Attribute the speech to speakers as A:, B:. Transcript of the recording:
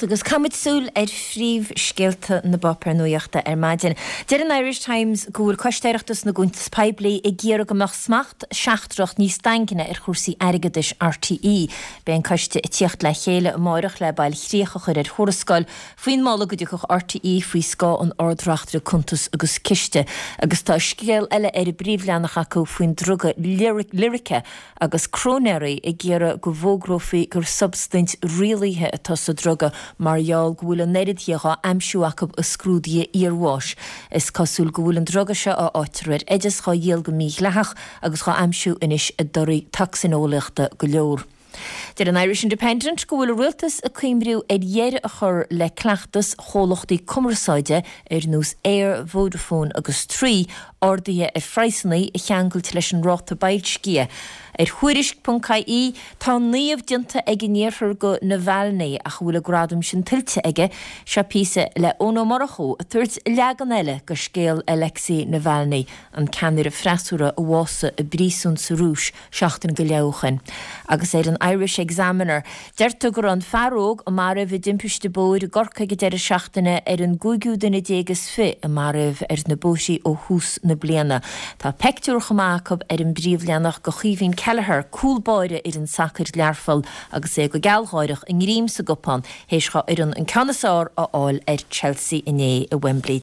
A: Agus caithfimid súil ar phríomhscéalta na bpáipéar nuachta ar maidin. Deir an Irish Times go bhfuil Coiste Oireachtais na gCuntas Poiblí ag iarraidh go mbeadh smacht seachtrach níos daingne ar chúrsaí airgeadais RTÉ. Beidh an coiste ag tíocht le chéile amáireach le bailchríoch a chur ar thuarascáil faoin moladh go dtiocfadh RTÉ faoi scáth an Ard-Reachtaire Cuntas agus Ciste. Agus tá scéal eile ar an bpríomhleathanach acu faoin druga Lyrica agus cróinéirí ag iarraidh go bhfógrófaí gur substaint rialaithe atá sa druga mar gheall go bhfuil an oiread dhe dhá aimsiú acu i scrúduithe iarbháis. Is cosúil go bhfuil an druga seo, a fhaightear ar oideas, dhá dhíol go mídhleathach agus dhá aimsiú anois i dtorthaí tocsaineolaíochta go leor. Deir an Irish Independent go bhfuil an rialtas ag cuimriú ar dheireadh a chur le cleachtas chomhlachtaí cumarsáide ar nós Eir, Vodafone agus Three arduithe ar phraghsanna a cheangailt leis an ráta boilscithe. Ar Thuairisc ponc ie, tá naomh déanta ag an iarthar go Navalny ach an bhfuil an gradam sin tuillte aige? Seo píosa le Eoin Ó Murchú ag tabhairt leagan eile go scéal Alexei Navalny, an ceannaire freasúra a bhásaigh i bpríosún sa Rúis seachtain go leith ó shoin. Agus ar an Irish Examiner, deirtear go raibh an fear óg a maraíodh i dtimpiste bóthair i gCorcaigh ag deireadh seachtaine ar an gcúigiú duine déag is fi a maraíodh ar na bóithrí ó thús na bliana. Tá peictiúr chomh maith acu ar an bpríomhleathanach go Chaoimhín Kelleher, cúl báire fhoireann sacair Learpholl agus é go gealgháireach, a ngreim sa gcupán, théis dhá fhoireann an ceann is fearr a fháil ar Chelsea inné i Wembley.